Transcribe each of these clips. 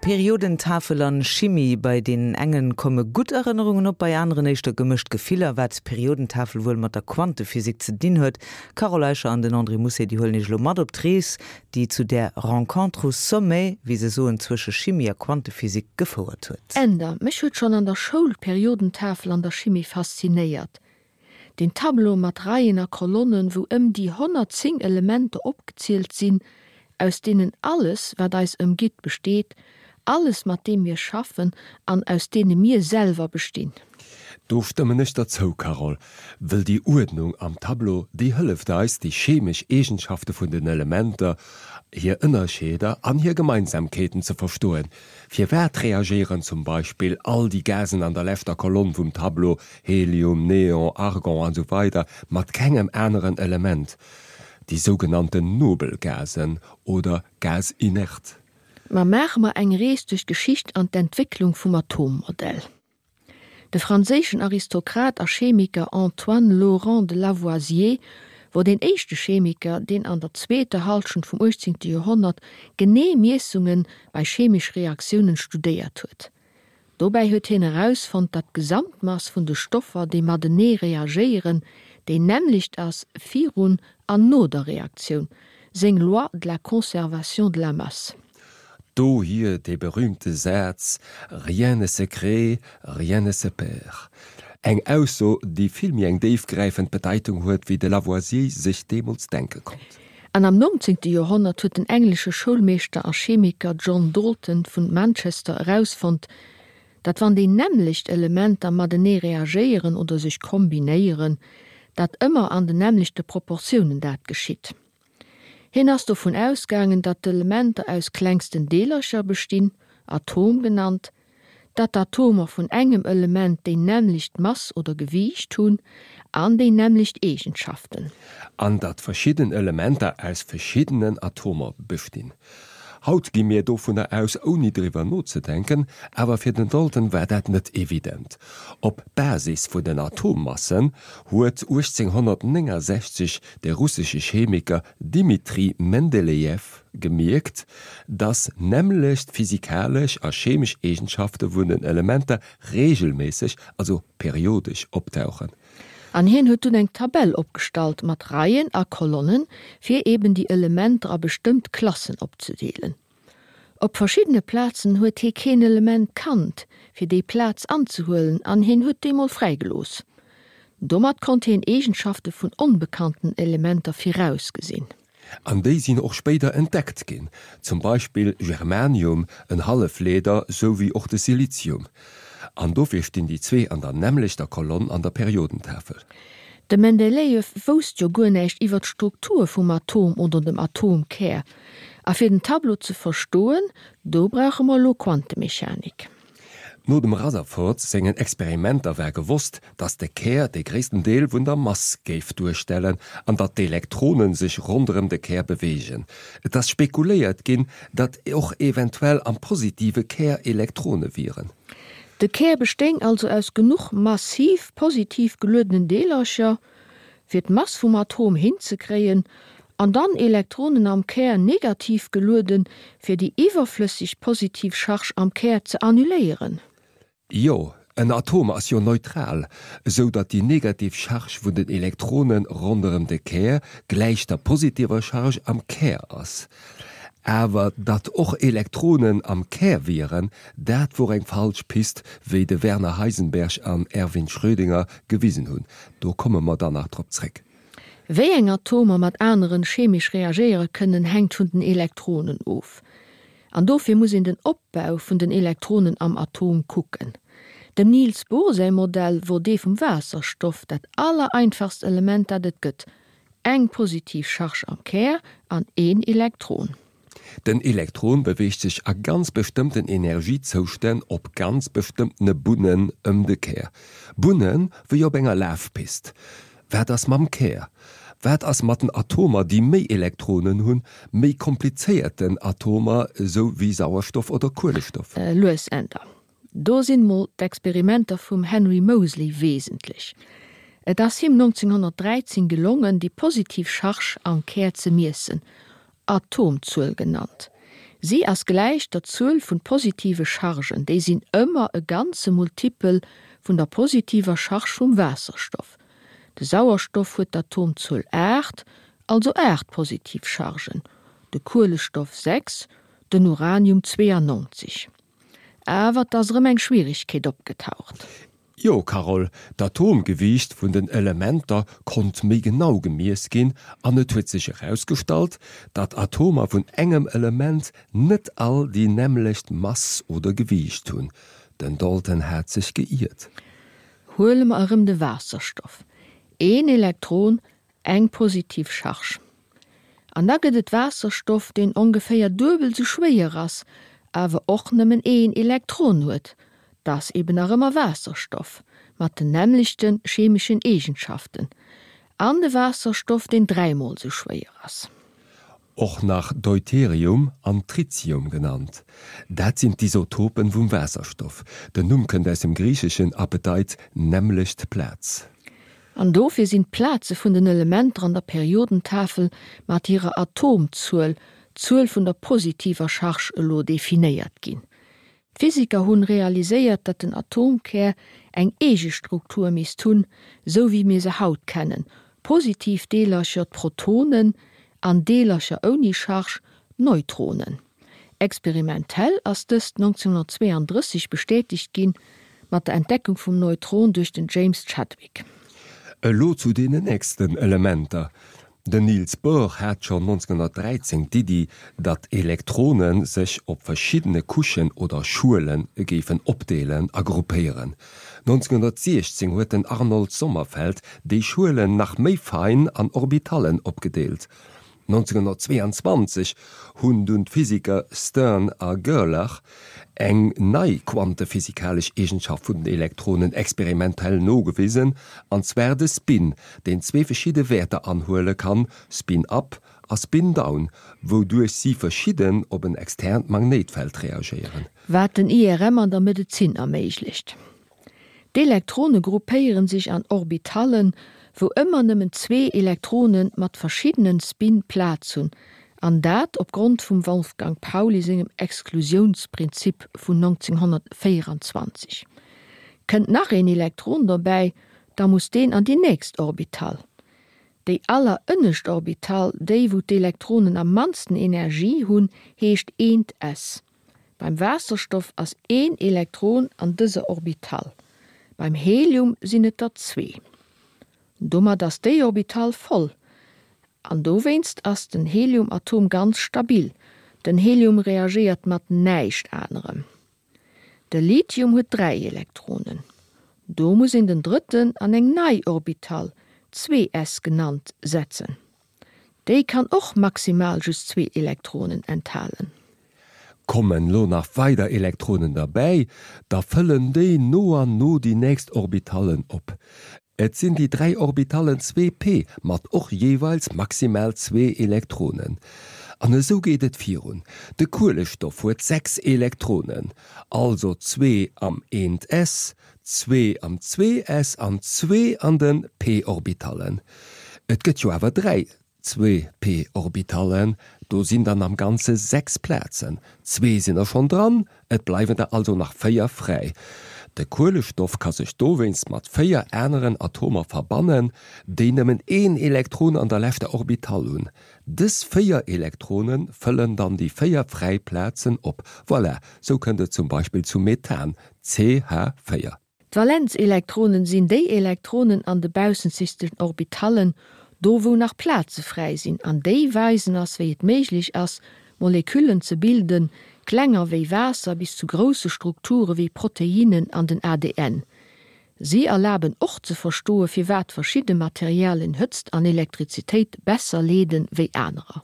Periodentafel an Chimie, bei deenen engen komme gutt Erënnerungen op, bei aneren éischter gemëscht Gefiller. Wat d'Periodentafel wuel mat der Quantephysik ze dinn huet? D'Carole Eicher an den André Mousset, déi huelen Iech elo mat op d'Rees, déi zu där Rencontre au sommet, wéi se soen, zwësche Chimie a Quantephysik gefouert huet. Änder, Mech huet schonn an der Schoul d'Periodentafel an der Chimie faszinéiert. Deen Tableau mat Reien a Kolonnen, wou ëm déi 110 Elementer opgezielt sinn, aus deenen alles, wat eis ëmgitt, besteet, alles, mat deem mir schaffen an aus deene mir selwer bestinn. Do stëmmen ech der zou, Carole, wëll déi Uerdnung am Tableau, déi hëlleft eis, déi chemesch Eegenschafte vun den Elementer, hir Ënnerscheeder an hir Gemeinsamkeeten ze verstoen. Firwat reagéieren zum Beispill all déi Gasen an der leschter Kolonn vum Tableau, Helium, Neon, Argon an esou weider, mat kengem aneren Element, déi sougenannten nobel Gasen oder Gaz inert? Ma maache mer eng Rees duerch d'Geschicht an d'Entwécklung vum Atommodell. De franséischen Aristokrat a Chemiker Antoine Laurent de Lavoisier wor deen éischte Chemiker, deen an der zweeter Hallschent vum 18. Joerhonnert genee Miessunge bei chemesch Reaktiounen studéiert huet. Dobäi huet hien erausfonnt, datt d'Gesamtmass vun de Stoffer, déi matenee reagéieren, déi nämmlecht ass virun an no der Reaktioun, seng Loi de la conservation de la masse. Dohier dee berühmte Saz Rien ne se crée, rien ne se perd. Eng Ausso, déi vill méi eng déifgräifend Bedeitung huet, wéi de Lavoisier sech deemools denke konnt. An am 19. Joerhonnert huet den englesche Schoulmeeschter a Chemiker John Dalton vun Manchester erausfonnt, datt wann déi nämmlecht Elementer matenee reagéieren oder sech kombinéieren, dat ëmmer an den nämmlechte Proportiounen dat geschitt. Hien ass dovun ausgaangen, datt d'Elementer aus klengsten Deelercher bestinn, Atom genannt, datt d'Atomer vun engem Element déi nämmlecht Mass oder Gewiicht hunn an déi nämmlecht Eegenschaften. An datt verschidden Elementer aus verschiddenen Atomer bestinn. Haut gi mir dovunner aus, ouni driwwer nozedenken, awer fir den Dalton war dat net evident. Op Basis vun den Atommassen huet 1869 de russesche Chemiker Dmitri Mendelejew gemierkt, dass nämmlecht physikalesch a chemesch Eegenschafte vun den Elementer reegelméisseg, also periodesch optauchen. An hien huet dunn eng Tabell opgestallt mat Reien a Kolonnen, fir eben déi Elementer a bestëmmt Klassen opzedeelen. Op verschiddene Plazen huet hie keen Element kannt, fir déi Plaz anzehuelen an hien huet déi mol fräigelooss. Domat konnt hien Eegenschafte vun onbekannten Elementer virausgesinn. An déi sinn och spéider entdeckt ginn, zum Beispill Germanium, en Hallefleeder, sou wéi och de Silizium. An dofir stinn déi zwee an der nämmlechter Kolonn an der Periodentafel. De Mendelejew wousst jo guer näischt iwwer d'Struktur vum Atom oder dem Atomkär. A fir den Tableau ze verstoen, do brauche mer elo Quantemechanik. No dem Rutherford sengen Experimenter war gewosst, datt de Kär de gréissten Deel vun der Mass géif duerstellen an datt d'Elektrone sech ronderëm de Kär beweegen. Et ass spekuléiert ginn, datt och eventuell am positive Kär Elektrone wieren. De Kär bestéing also aus genuch massiv positiv geluedenen Deelercher, fir d'Mass vum Atom hinzekréien, an dann Elektronen am Kär negativ gelueden, fir déi iwwerflësseg positiv Charge am Kär ze annuléieren. Jo, en Atom ass jo neutral, esou datt déi negativ Charge vun den Elektrone ronderëm de Kär gläich der positiver Charge am Kär ass. Awer datt och Elektronen am Kär wieren, dat wor eng falsch Pist, wéi de Werner Heisenberg an Erwin Schrödinger gewisen hunn. Do komme mer dann nach drop zréck. Wéi eng Atomer mat aneren chemesch reagéiere kënnen, hänkt vun den Elektronen of. An dofir muss een den Opbau vun den Elektronen am Atom kucken. Dem Niels Bohr säi Modell wor dee vum Waasserstoff, dat allereinfachst Element dat et gëtt, eng positiv Charge am Kär an een Elektron. Den Elektron beweegt sech a ganz bestëmmten Energiezoustänn op ganz bestëmmtene Bunnen ëm de Kär. Bunne wéi op enger Lafpist. Wat ass mam Kär? Wat ass mat den Atomer, déi méi Elektronen hunn, méi komplizéierten Atomer, esou wéi Sauerstoff oder Kuelestoff? Lues Änder. Do sinn mol d'Experimenter vum Henry Moseley wesentlech. Et ass him 1913 gelongen, déi positiv Charge am Kär ze miessen, Atomzuel genannt. Si ass gläich der Zuel vun positive Chargen, déi sinn ëmmer e ganze Multipel vun der positiver Charge vum Waasserstoff. De Sauerstoff huet d'Atomzuel 8, also 8 positiv Chargen, de Kuelestoff 6, den Uranium 92. Awer 't ass erëm eng Schwierigkeet opgetaucht. Jo, Carole, d'Atomgewiicht vun den Elementer konnt méi genau gemiess ginn an et huet sech erausgestallt, datt Atomer vun engem Element net all déi nämmlecht Mass oder Gewiicht hunn. Den Dalton hat sech geiert. Huele mer erëm de Waasserstoff, een Elektron Eng positiv Charge. An da gëtt et Waasserstoff, deen ongeféier duebel sou schwéier ass, awer och nëmmen een Elektron huet. 't ass eben nach ëmmer Waasserstoff, mat den nämmlechte chemeschen Eegenschaften. An de Waasserstoff, deen dräimol sou schwéier ass. Och nach Deuterium an Tritium genannt. Dat sinn d'Isotopen vum Waasserstoff. Den Numm kënnt aus dem Griicheschen a bedeit nämmlecht Plaz. An dofir sinn d'Plaze vun den Elementer an der Periodentafel mat hirer Atomzuel, d'Zuel vun der positiver Charge, elo definéiert ginn. D'Physiker hunn realiséiert, datt den Atomkär eng eege Struktur misst hunn, sou wéi mir se haut kennen, positiv Deelercher, d'Protonen, an Deelercher ouni Charge, d'Neutronen. Experimentell ass dëst 1932 bestätegt ginn, mat der Entdeckung vum Neutron duerch den James Chadwick. Elo zu deenen nächsten Elementer. Den Niels Bohr hat schonn 1913 d'Iddi, datt Elektrone sech op verschiddene Couchen oder Schuele géifen opdeelen a gruppéieren. 1916 huet den Arnold Sommerfeld déi Schuelen nach méi fein an Orbitallen opgedeelt. 1922 hunn dunn d'Physiker Stern a Gerlach eng nei quantephysikalesch Eegenschaft vun den Elektronen experimentell nogewisen, an zwar de Spin, deen zwee verschidde Wäerter anhuele kann, Spin up a Spin down, wouduerch si verschidden op en externt Magnéitfeld reagéieren. Wat den IRM an der Medezin erméiglecht. D'Elektrone gruppéieren sech an Orbitallen, wou ëmmer nëmmen zwee Elektrone mat verschiddenen Spin Plaz hunn, an dat opgrond vum Wolfgang Pauli sengem Exklusiounsprinzip vun 1924. Kënnt nach een Elektron dobäi, da muss deen an déi nächst Orbital. Déi allerënnescht Orbital, déi wou d'Elektronen am mannsten Energie hunn, heescht eent s. Beim Waasserstoff ass een Elektron an dëser Orbital, beim Helium sinn et der zwee. Domat ass déi Orbital voll an dowéinst ass den Heliumatom ganz stabil, den Helium reagéiert mat näischt anerem. De Lithium huet 3 Elektronen. Do muss een den drëtten an eng nei Orbital, 2s genannt, setzen. Déi kann och maximal just zwee Elektronen enthalen. Kommen lo nach weider Elektronen derbäi, da fëllen déi no an no déi nächst Orbitallen op. Et sinn déi 3 Orbitallen 2p mat och jeeweils maximal zwee Elektronen. An esou geet et virun. De Kuelestoff huet 6 Elektronen, also zwee am 1s, zwee am 2s an zwee an de p-Orbitallen. Et gëtt jo awer 3 2p-Orbitallen, do sinn dann am Ganze 6 Plazen. Zwee sinn der schonn dran, et bleiwen der also nach 4 fräi. De Kuelestoff ka sech dowéinst mat 4 aneren Atomer verbannen, déi nëmmen een Elektron an der leschter Orbital hunn. Dës 4 Elektrone fëllen dann déi 4 fräi Plazen op. Voilà, sou kënnt et zum Beispill zum Methan, CH4. D'Valenzelektronen sinn déi Elektronen an de baussenzegsten Orbitallen, do wou nach Plaze fräi sinn, an déi weisen ass wéi et méiglech ass Moleküllen ze bilden, klenger wéi Waasser bis zu grousse Strukture wéi Proteinnen an den ADN. Si erlaben och ze verstoe firwat verschidde Materialien Hëtzt an Elektrizitéit besser leede wéi anerer.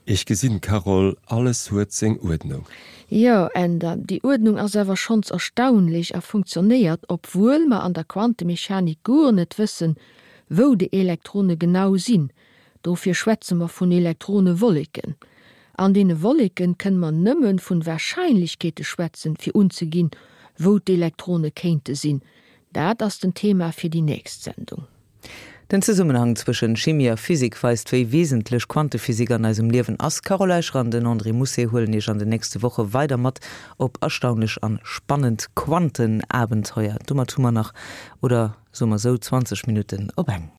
Ech gesinn, Carole, alles huet seng Uerdnung. Jo, Änder, déi Uerdnung ass awer schonns erstaunlech a funktionéiert, obwuel mer an der Quantemechanik guer net wëssen, wou déi Elektrone genau sinn. Dofir schwätze mer vun Elektronewolleken. An deene Wolleken kënne mer nëmme vun Wahrscheinlechkeete schwätzen, fir unzeginn, wou d'Elektrone kéinte sinn. Dat ass den Thema fir déi nächst Sendung. Den Zesummenhang zwëschen Chimie a Physik weist, wéi wesentlech Quantephysik an eisem Liewen ass. D'Carole Eicher an den André Mousset huelen Iech an den nächste Woche weider mat op erstaunlech an spannend Quantenabenteuer. Domat hu mer nach, oder soe mer sou, 20 Minutten op eng.